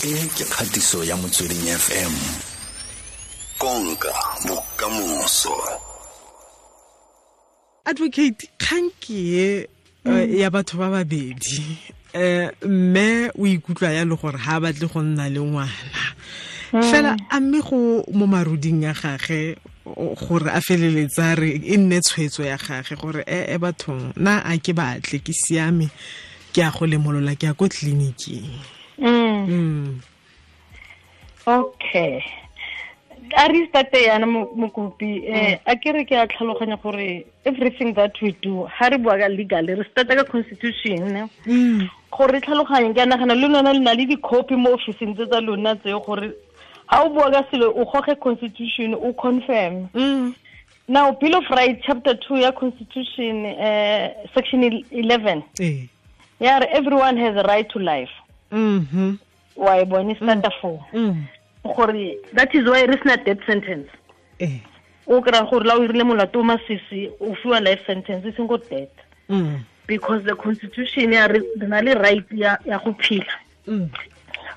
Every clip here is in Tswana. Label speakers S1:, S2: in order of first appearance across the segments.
S1: E ke kgatiso ya Motsweding FM. Konka bokamoso.
S2: Advocate, kgang ke e ya batho ba babedi. Mme o ikutlwa ya le gore ha batle go nna le ngwana. Fela a mme go mo maruding ya gagwe gore a feleletsa re e nne tshwetso ya gagwe gore e bathong na a ke batle ke siame ke a go lemolola ke ya ko tleliniking.
S3: Okay. A re starte yana mokopi, a ke re ke a tlhaloganya gore everything that we do ha re bua ka legal re starta ka constitution gore re tlhaloganye. Ke a nagana le lona le na le di-copy mo officing tse tsa lona tse gore ha o bua ka selo o goge constitution o confirm. Now Bill of Rights chapter 2 ya constitution, section 11 ya re everyone has a right to life. Wa e bone starta 4 gore that is why re sena death sentence. O kry-a gore la o irile molato o masisi o fiwa life sentence e seng go death, because the constitution ya re na le right ya go phela.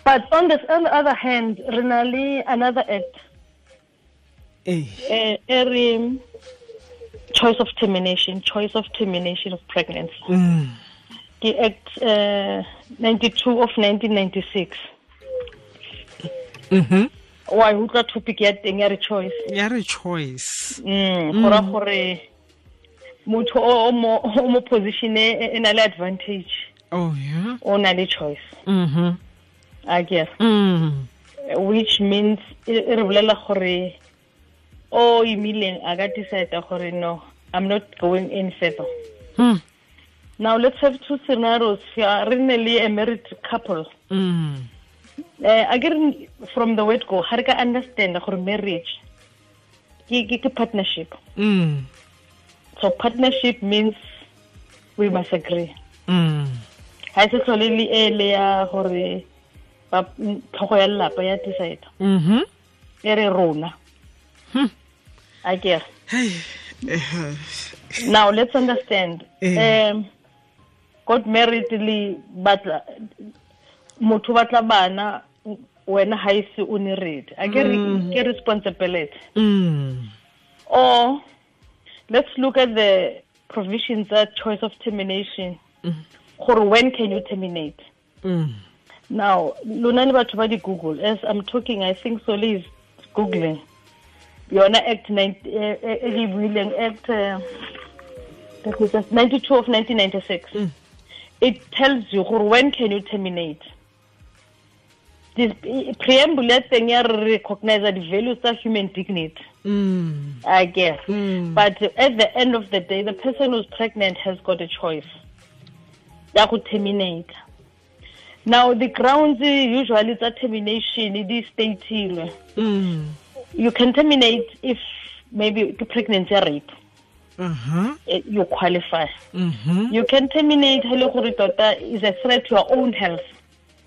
S3: But on the other hand re na le another act e re choice of termination of pregnancy. Ke Act 92 of 1996. Wa utlwa topic ya teng ya re choice.
S2: Ya re choice.
S3: Gora gore motho o mo position e na le advantage.
S2: Oh yeah.
S3: O na le choice. I guess. Which means e re bolela gore o imileng a ka decide gore no, I'm not going any further. Now let's have two scenarios here. Re ne le a married couple. Again, from the word go, ha re ka understand gore marriage ke partnership. So partnership means we must agree. Ha se tlhole le e le ya gore ba tlhogo ya lelapa ya decide. E re rona. I guess. Now let's understand. Got married le batla motho batla bana wena ha ise o ne ready. A ke ke responsibility. Or let's look at the provisions that choice of termination. Gore when can you terminate? Now lona le batho ba di Google. As I'm talking, I think Soli is googling. Yona Act 9 Act 92 of 1996. It tells you gore when can you terminate. This preamble thing ya recognize the values of human dignity. I guess. But at the end of the day, the person who's pregnant has got a choice. Ya go terminate. Now the grounds usually that termination it is stated. You can terminate if maybe the pregnancy rape. You qualify. You can terminate is a threat to your own health.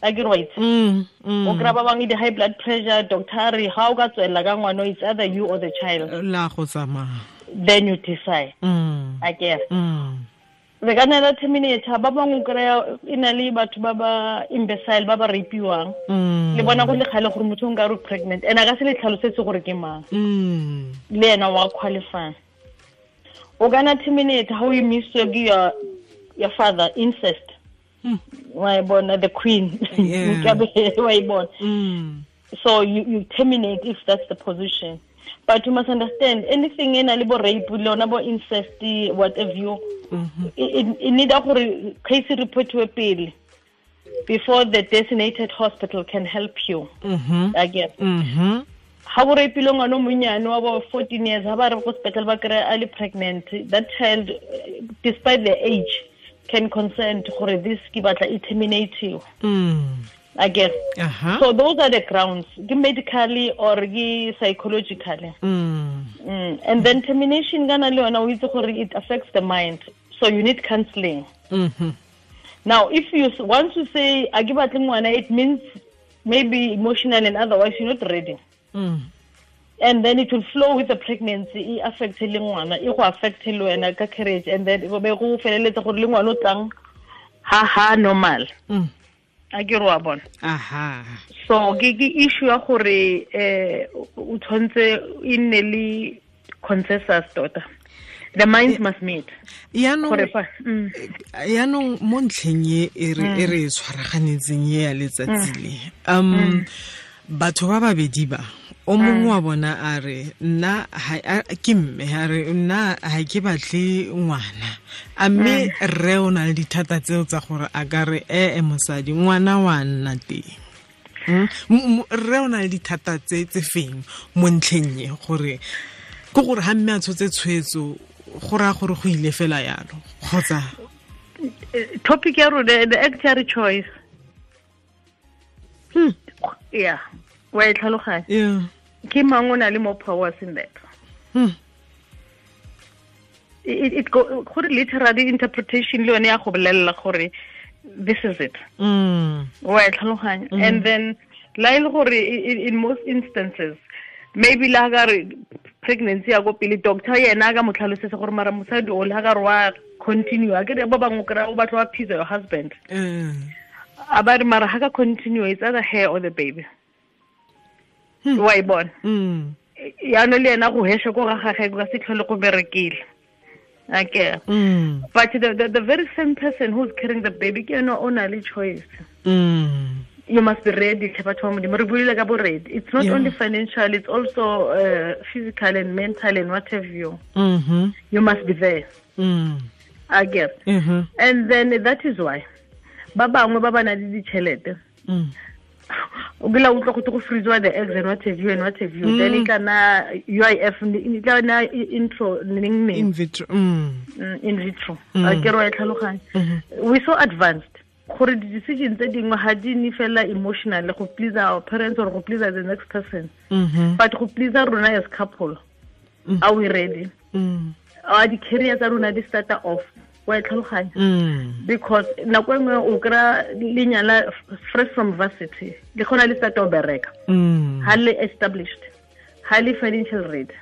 S3: I get right. O kry-a ba bangwe di high blood pressure, doctor re ha o ka tswelela ka ngwana, it's either you or the child.
S2: La go tsamaya.
S3: Then you decide. I guess. Re ka nna la terminate ba bangwe o kry-a e na le batho ba ba imbecile ba ba rapiwang. Le bona go le kgale gore motho o nka re pregnant and a ka se le tlhalosetse gore ke mang. Le ena wa qualify. O ka nna terminate ha o imiswe ke your father, incest. Why born the queen? Why born? So you terminate if that's the position. But you must understand anything in a little rape, incest, whatever you, it need a case report to appeal before the designated hospital can help you. I guess. Ha o rapile ngwana o monnyane wa bo 14 years, ha ba re go sepetlele ba kry-a a le pregnant, that child, despite the age, can consent gore this ke batla e terminate you. I guess. So those are the grounds, medically or psychologically. And then termination kana le yona o itse gore it affects the mind, so you need counseling. Now if you once you say a ke batle ngwana, it means maybe emotional and otherwise you're not ready. And then it will flow with the pregnancy, e affect le ngwana, e go affect le wena ka carriage, and then e be go feleletsa gore le ngwana o tlang ha normal. A ke re wa bona.
S2: Aha.
S3: So ke issue ya gore o tshwantse e nne le consensus tota. The minds must meet.
S2: Yaanong mo ntlheng e re tshwaraganetseng e ya letsatsi le. Batho ba babedi ba o mongwe wa bona a re nna ke mme a re nna ha ke batle ngwana, a mme rre o na le dithata tseo tsa gore a ka re mosadi ngwana wa nna teng. Rre o na le dithata tse feng mo ntlheng e gore ke gore ha mme a tshotse tshwetso go raya gore go ile fela yalo kgotsa
S3: topic ya rona the actual choice. Yeah. Wa e tlhaloganya.
S2: Yeah.
S3: Ke mang o na le more powers in that. It go gore literary interpretation le yone ya go bolelela gore this is it. Wa e tlhaloganya. And then la ile gore in most instances maybe la ga re pregnancy ya go pele doctor yena ka mo tlhalosetse gore mara mosadi o la ga re wa continue a ke ba bangwe kra o batla wa appease your husband. A ba re mara ha ka continue it's either her or the baby. Wa e bona. Yaanong le yena go hesha ko ga gagwe ka se tlhole go berekile. Okay. But the very same person who's carrying the baby ke yena o na le choice. You must be ready. It's not only financial, it's also physical and mental and what have you. You must be there. I get. And then that is why ba bangwe ba ba na le ditšhelete. O kile utlwa go go freeze the eggs and what have you and what have you. Then e kana UIF e tla na intro neng
S2: in vitro.
S3: In vitro. A ke ro e tlhaloganya. We so advanced. Gore di decision tse dingwe ha di ne fela emotional go please our parents or go please the next person. But go please rona as couple. Are we ready? Are the career tsa rona di start off? Wa e tlhaloganya. Because nako engwe o kra lenyala fresh from varsity le khona le start o bereka. Ha le established, highly financial ready.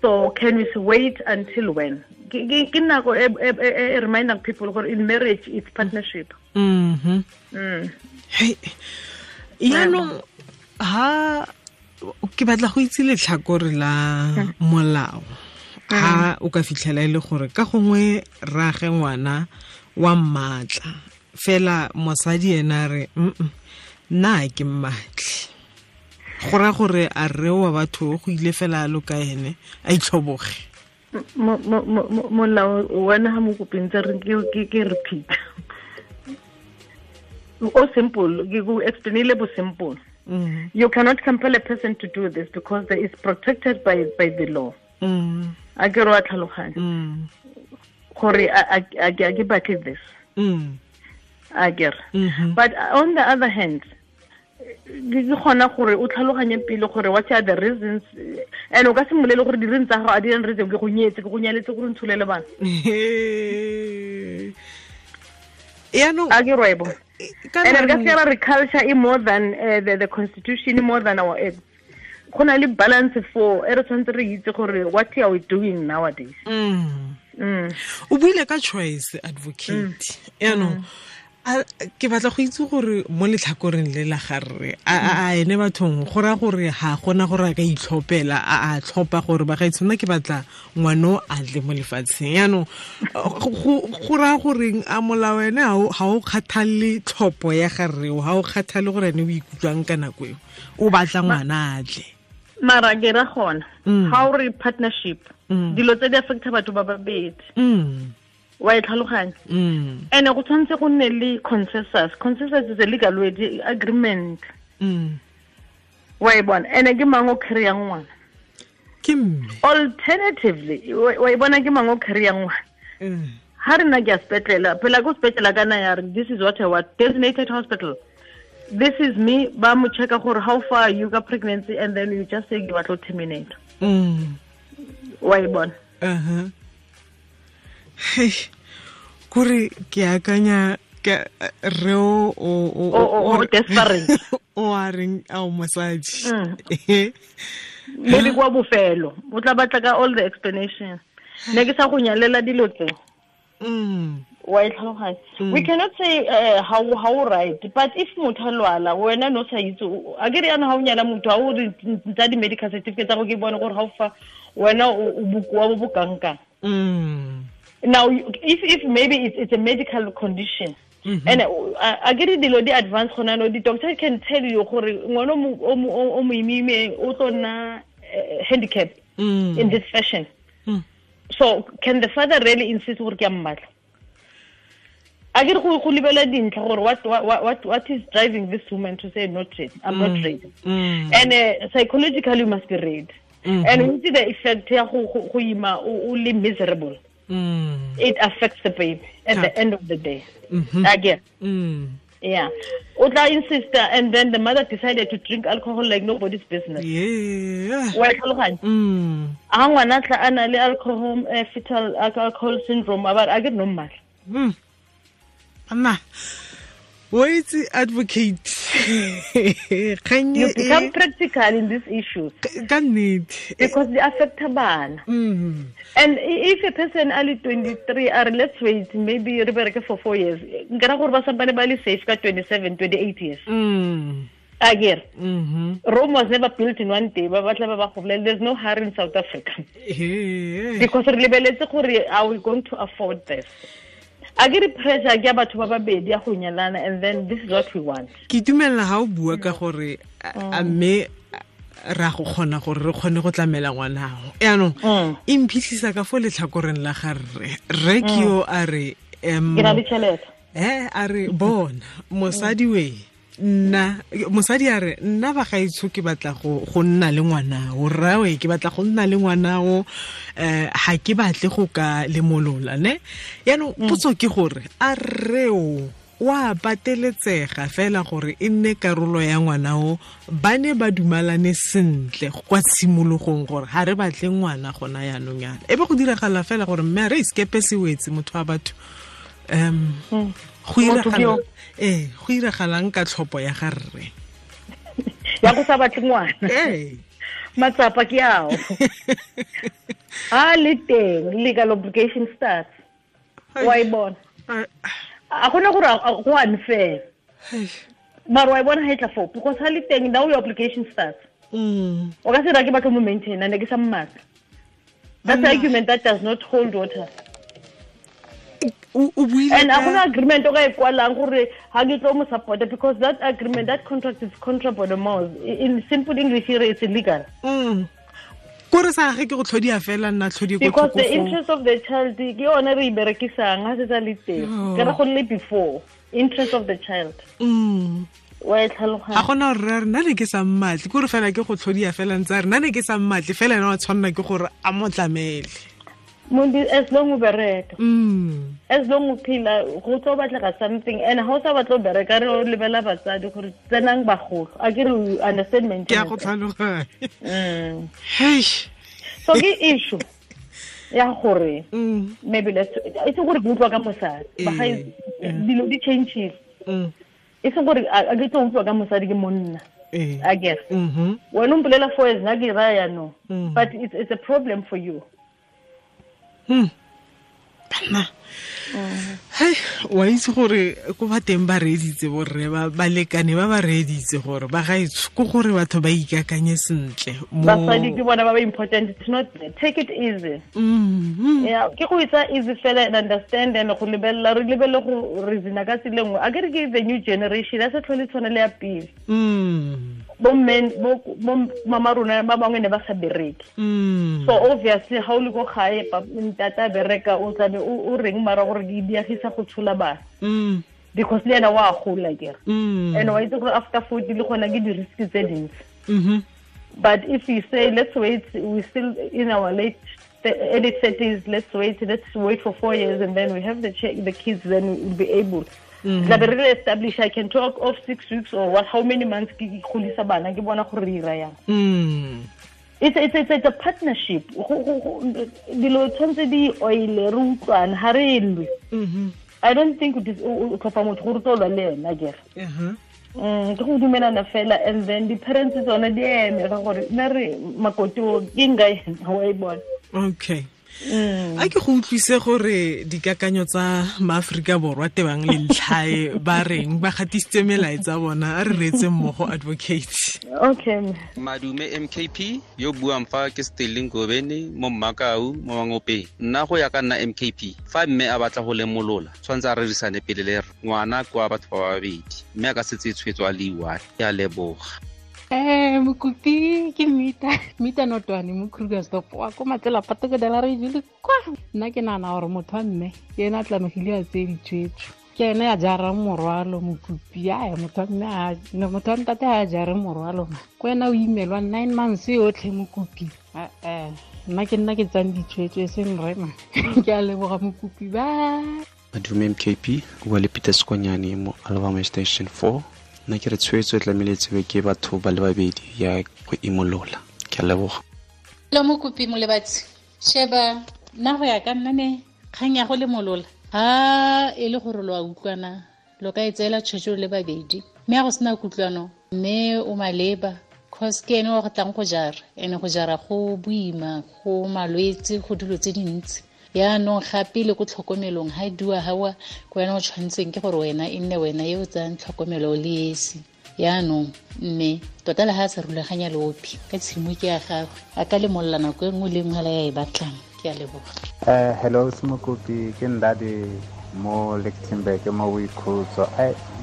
S3: So can we wait until when? Ke nako e reminding people gore in marriage it's partnership.
S2: Hey, yaanong ha ke batla go itse letlhakore la molao. Ha o ka fitlhela ile gore ka gongwe rage ngwana wa mmatla fela mosadi ena re nna ke mmatle, go ra gore a re wa batho go ile fela lo ka ene a itlhoboge.
S3: Molao wena ha mo kopeng tsa re ke repeat. O simple, ke go explainile bo simple. You cannot compel a person to do this because it is protected by the law. A ke ro tlhaloganya gore a ke batle this. A ke re. But on the other hand, ke gona gore o tlhaloganye pele gore what are the reasons, and o ka simolele gore di reasons tsa gago a di reason ke go nyetse ke go nyaletse gore ntsholele bana.
S2: Yaanong
S3: a ke rwebo. And re ka se re culture e more than the constitution, more than our acts. Go na le balance for e re tshwanetse re itse gore what are we doing nowadays.
S2: O buile ka choice advocate. Yaanong ke batla go itse gore mo letlhakoreng le la garre a ene bathong go ra gore ha gona gore a ka itlhopela a tlhopa gore ba ga itshwana ke batla ngwano a tle mo lefatsheng. Yaanong go ra gore a molao ene ha o kgathalle tlhopo ya garre ha o kgathalle gore ene o ikutlwang ka nako eo o batla ngwana a tle.
S3: Mara ke ra gona ha o re partnership dilo tse di affecta batho ba babedi. Wa e tlhaloganya. And go tshwanetse go nne le consensus. Consensus is a legal word, agreement. Wa e bona. And ke mang o carryang ngwana?
S2: Ke mme.
S3: Alternatively, wa e bona ke mang o carryang ngwana? Ha re na ke ya sepetlele, phela ko sepetlele kana ya re this is what I want, designated hospital. This is me, ba mo checka gore how far you got pregnancy, and then you just say you want to terminate. Wa e bona.
S2: Hey, kore ke akanya ke re o
S3: desperate
S2: o a reng a o mosadi.
S3: Maybe kwa bofelo o tla batla ka all the explanation. Ne ke sa go nyalela dilo tse. Wa e tlhaloganya. We cannot say how right, but if motho a lwala wena no sa itse, a ke re yana ha o nyala motho ha o re tsa di medical certificate tsa go ke bone gore how far wena o bokoa bo bo kangkang. Now if maybe it's a medical condition. And I get it, the advance gona no, the doctor can tell you gore ngwana o moimime o tlo nna handicap in this fashion. So can the father really insist gore ke a mmatla? A ke re go lebela dintlha gore what is driving this woman to say not ready, I'm not ready. And psychologically you must be ready. And we see the effect ya go ima o le miserable. It affects the baby at the end of the day. Again. Yeah. Otla insist, and then the mother decided to drink alcohol like nobody's business.
S2: Yeah.
S3: Wa tlhaloganya. A ngwana tla ana le alcohol fetal alcohol syndrome about I get no mal.
S2: Anna, wait, advocate.
S3: Can you become practical in these issues? Because they affect bana. And if a person only 23 are, let's wait, maybe re for 4 years. Nkara gore ba sampane ba le safe ka 27, 28 years. Again. Rome was never built in one day. There's no hurry in South Africa. Because re lebeletse gore are we going to afford this? I get pressure ke batho ba babedi ya go nyalana, and then this is what we want.
S2: Ke dumela ha o bua ka gore a mme ra go kgona gore re kgone go tlamela ngwana ho. Yaanong e mphitlhisa ka fo letlhakoreng la ga rre. Rre ke yo a re
S3: ke na le tšhelete.
S2: A re bona mosadi we nna mosadi a re nna ba gaetsho ke batla go nna le ngwana o rrawe ke batla go nna le ngwana o ha ke batle go ka lemolola ne. Yaanong potso ke gore a rreo wa pateletsega fela gore e nne karolo ya ngwana o ba ne ba dumalane sentle kwa tshimologong gore ha re batle ngwana gona yaanong yana e be go diragala fela gore mme a re iskepe se wetse motho wa batho go iragalang ka tlhopo ya ga rre
S3: ya go sa batle ngwana. Matsapa ke ao a le teng legal obligation starts. Wa e bona a gona gore go unfair mara wa e bona ha e tla foo because ha le teng now your obligation starts. O ka se ra ke batlo mo maintain and ke sa mmatla. That's an argument that does not hold water. And a gona agreement o ka e kwalang gore ha ke tlo mo support, because that agreement, that contract is contra mos. In simple English here it's illegal.
S2: Kore sa ge ke go tlhodia fela nna tlhodi go
S3: because the interest of the child ke yone re iberekisang ha se tsa le teng. Ke re go le before interest of the child. Wa e tlhaloganya.
S2: A gona re nna ne ke sa mmatle kore fela ke go tlhodia fela ntse re nna ne ke sa mmatle fela ena wa tshwanna ke gore a mo tlamele.
S3: Mundi as long o bereka. As long o phela go tlo batlega something, and ha o sa batlo bereka re o lebela batsadi gore tsenang bagolo. A ke re understand maintenance.
S2: Ke a go tlhaloganya. Hey.
S3: So ke issue ya gore maybe let's e se gore ke utlwa ka mosadi. Ba ga dilo di changes. E se gore a ke tlo utlwa ka mosadi ke monna. I guess. Wena o mpolela 4 years na ke raya no. But it's a problem for you.
S2: Banna. Hey, wa itse gore ko ba teng ba reeditse borre ba lekane ba reeditse gore ba gaetsho ko gore batho ba ikakanye sentle mo
S3: basadi ke bona ba ba important. It's not, take it easy. Yeah, ke go itsa easy fela and understand and go lebella re lebelle go reason ka tsile nngwe. A ke re ke the new generation a se tlhole tshwana le ya pele. Bo men bo mama rona ba bangwe ne ba sa bereke. So obviously ha o le go gae ntata bereka o tlabe o reng mara gore di diagisa go tshola bana. Because le ena wa gola ke re. And wa itse gore after 40 le gona ke di risk tse dintsi. But if you say let's wait, we still in our late early 30s, let's wait for 4 years and then we have the kids, then we'll be able. Tla be re establish. I can talk of 6 weeks or what, how many months ke golisa bana ke bona gore re ira yang. It's a partnership. Dilo tshwantse di oile re utlwane ha re lwe. I don't think o tlhopa motho gore tlo lwa le ena ke re. Ke go dumelana fela, and then the parents tsone di eme ka gore nna re makoti o ke nka ena wa e bona.
S2: Okay. A ke go utlwise gore dikakanyo tsa maAfrika Borwa tebang le ntlhae ba reng ba gatisitse melaetsa bona a re reetse mmogo advocate.
S3: Okay.
S4: Madume MKP yo buang fa ke Sterling Gobeni mo Mmakau mo Mangopeng. Nna go ya ka nna MKP fa mme a batla go lemolola tshwanetse a rerisane pele le ngwana kwa batho ba babedi mme a ka setse tshwetso a le one. Ke a leboga.
S5: Mokopi ke Mita Notwane mo Krugersdorp wa ko Matsela Patoko de la re jule kwa. Nna ke nagana gore motho wa mme ke ena a tlamegile a tseye ditshwetso, ke ene a jarang morwalo. Mokopi a motho wa mme motho wa ntate a jare morwalo ma ko wena o imelwa 9 months yotlhe mokopi. Nna ke nna ke tsang ditshwetso e seng rema. Ke a leboga mokopi ba.
S6: Madume MKP o le Peter Skonyane mo Alabama Station 4. Nna ke re tshwetso e tlamehile tsebe ke batho ba le babedi ya go imolola. Ke a leboga.
S7: Lo mokopi molebatsi sheba nna go ya ka nna ne kgang ya go lemolola ha e le gore lo a utlwana lo ka e tseela tshwetso le babedi mme a go sena kutlwano mme o maleba cause ke ene wa go tlang go jara ene go jara go boima go malwetse go dilo tse dintsi. Yaanong gape le ko tlhokomelong ha e dua hawa ko wena o tshwanetseng ke gore wena e nne wena e o tsayang tlhokomelo le esi. Yaanong mme tota le ha a sa rulaganya leopi ka tshimo ke ya gagwe a ka lemolola nako e nngwe le nngwe la ya e batlang. Ke a leboga.
S8: Hello Mokopi ke Ndadi mo Lichtenburg mo Boikhutso.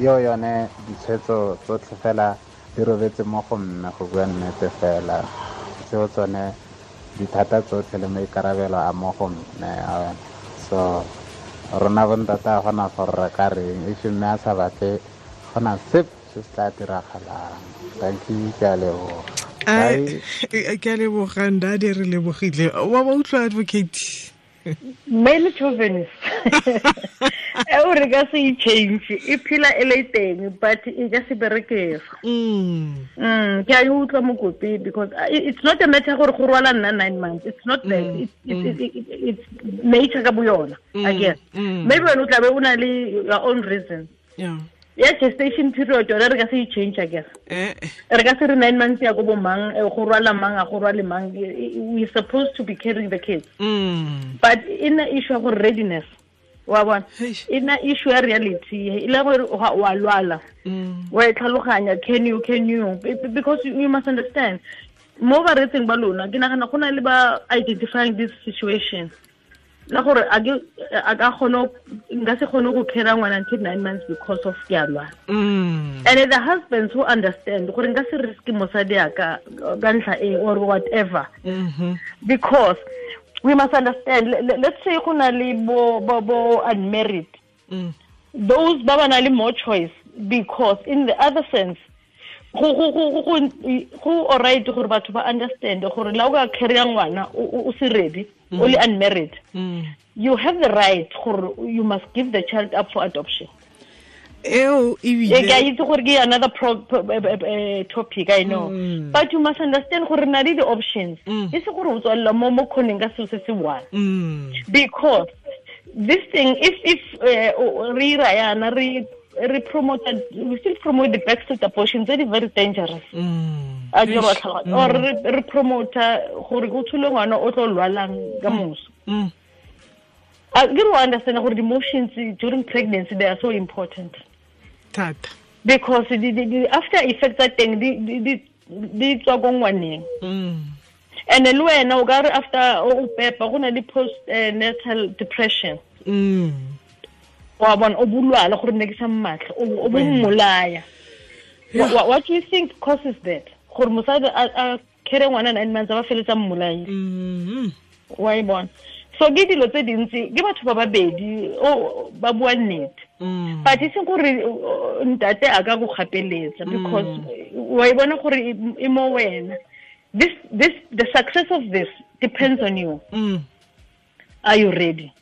S8: Yo yone ditshwetso tsotlhe fela di robetse mo go mme go bua nnete fela tseo tsone dithata tsotlhe le maikarabelo a mo go mme. So rona bontate a gona gore re ka reng if mme a sa batle gona sepe se se tla diragalang. Thank you, ke a leboga.
S2: Ke a leboga Ndadi, re lebogile. Wa ba utlwa advocate?
S3: Male chauvinist. Eo re ka se e change e phela e le teng but e ka se berekega. Ke a e utlwa mokopi because it's not a matter gore go rwala nna 9 months. It's not that. It's nature ka bo yona, I guess. Maybe wena o tla be o na le your own reason.
S2: Yeah.
S3: Ya gestation period yona re ka se e change, I guess. Re ka se re 9 months ya go bo mang go rwala mang a go rwale mang. We supposed to be carrying the kids. But in the issue of readiness wa bona e na issue ya reality e le gore wa lwala wa e tlhaloganya can you because you must understand mo ba retseng ba lona ke nagana go na le ba identifying this situation la gore a ka kgone nka se kgone go carry ngwana until 9 months because of ke a lwala. And the husbands who understand gore nka se risk mosadi a ka ntlha e or whatever. Because we must understand, let's say go na le bo unmarried. Those ba ba na le more choice because in the other sense go alright gore batho ba understand gore la o ka carry ngwana o se ready o le unmarried. You have the right gore you must give the child up for adoption.
S2: Eo ebile
S3: ke a itse gore ke another topic, I know. But you must understand gore na le the options. E se gore o tswalla mo khoneng ka selo se se one. Because this thing if re ra yana re promote, we still promote the backstreet abortion, very very dangerous. A ke re tlhaloganya or re promote gore go tshole ngwana o tlo lwalang ka moso. I do understand gore the emotions during pregnancy, they are so important.
S2: Thata.
S3: Because the after effects tsa teng di tswa ko ngwaneng. And le wena o ka re after o pepa go na le post natal depression. Wa bona o bulwala gore ne ke sa mmatla o bo mmolaya. What do you think causes that? Gore mosadi a carry ngwana 9 months ba feletsa mmolaya. Wa e bona. So ke dilo tse dintsi ke batho ba babedi o ba bua nnete. But e seng gore ntate a ka go gapeletsa because wa e bona gore e mo wena. This the success of this depends on you. Are you ready?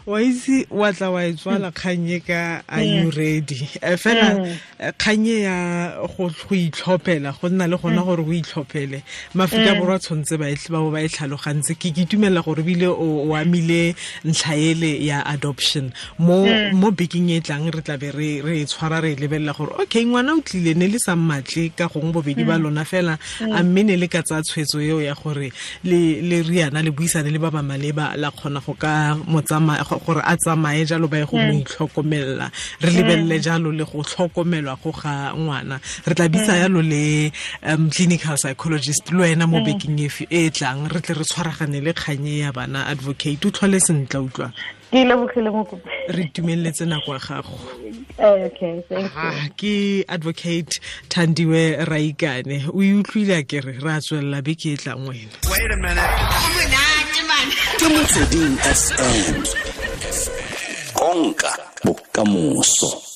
S2: Wa itse wa tla wa e tswala kgannye ka are you ready? Fela kgannye ya go itlhophela, go nna le gona gore o itlhophele. Mafika Borwa tshwanetse ba ba ba e tlhalogantse. Ke itumela gore bile o amile ntlha ele ya adoption. Mo bekeng e tlang re tla be re e tshwara re lebelela gore okay ngwana o tlile ne le sa mmatle ka gongwe bobedi ba lona fela, a mme ne le ka tsaya tshwetso eo ya gore le riana le buisane le ba ba maleba la kgona go ka motsamaya gore a tsamaye jalo ba ye go mo itlhokomela. Re lebelele jalo le go tlhokomelwa go ga ngwana. Re tla bitsa yalo le clinical psychologist le wena mo bekeng e tlang, re tle re tshwaragane le kganye ya bana. Advocate, o tlhole sentle, utlwa.
S3: Ke lebogile mokopi.
S2: Re itumeletse nako ya gago.
S3: Okay, thank you.
S2: Ke Advocate Thandiwe Raikane. O e utlwile a kere re a tswelela beke e tlang wena.
S1: Wait a minute. Ke Motsweding FM. Konka bokamoso.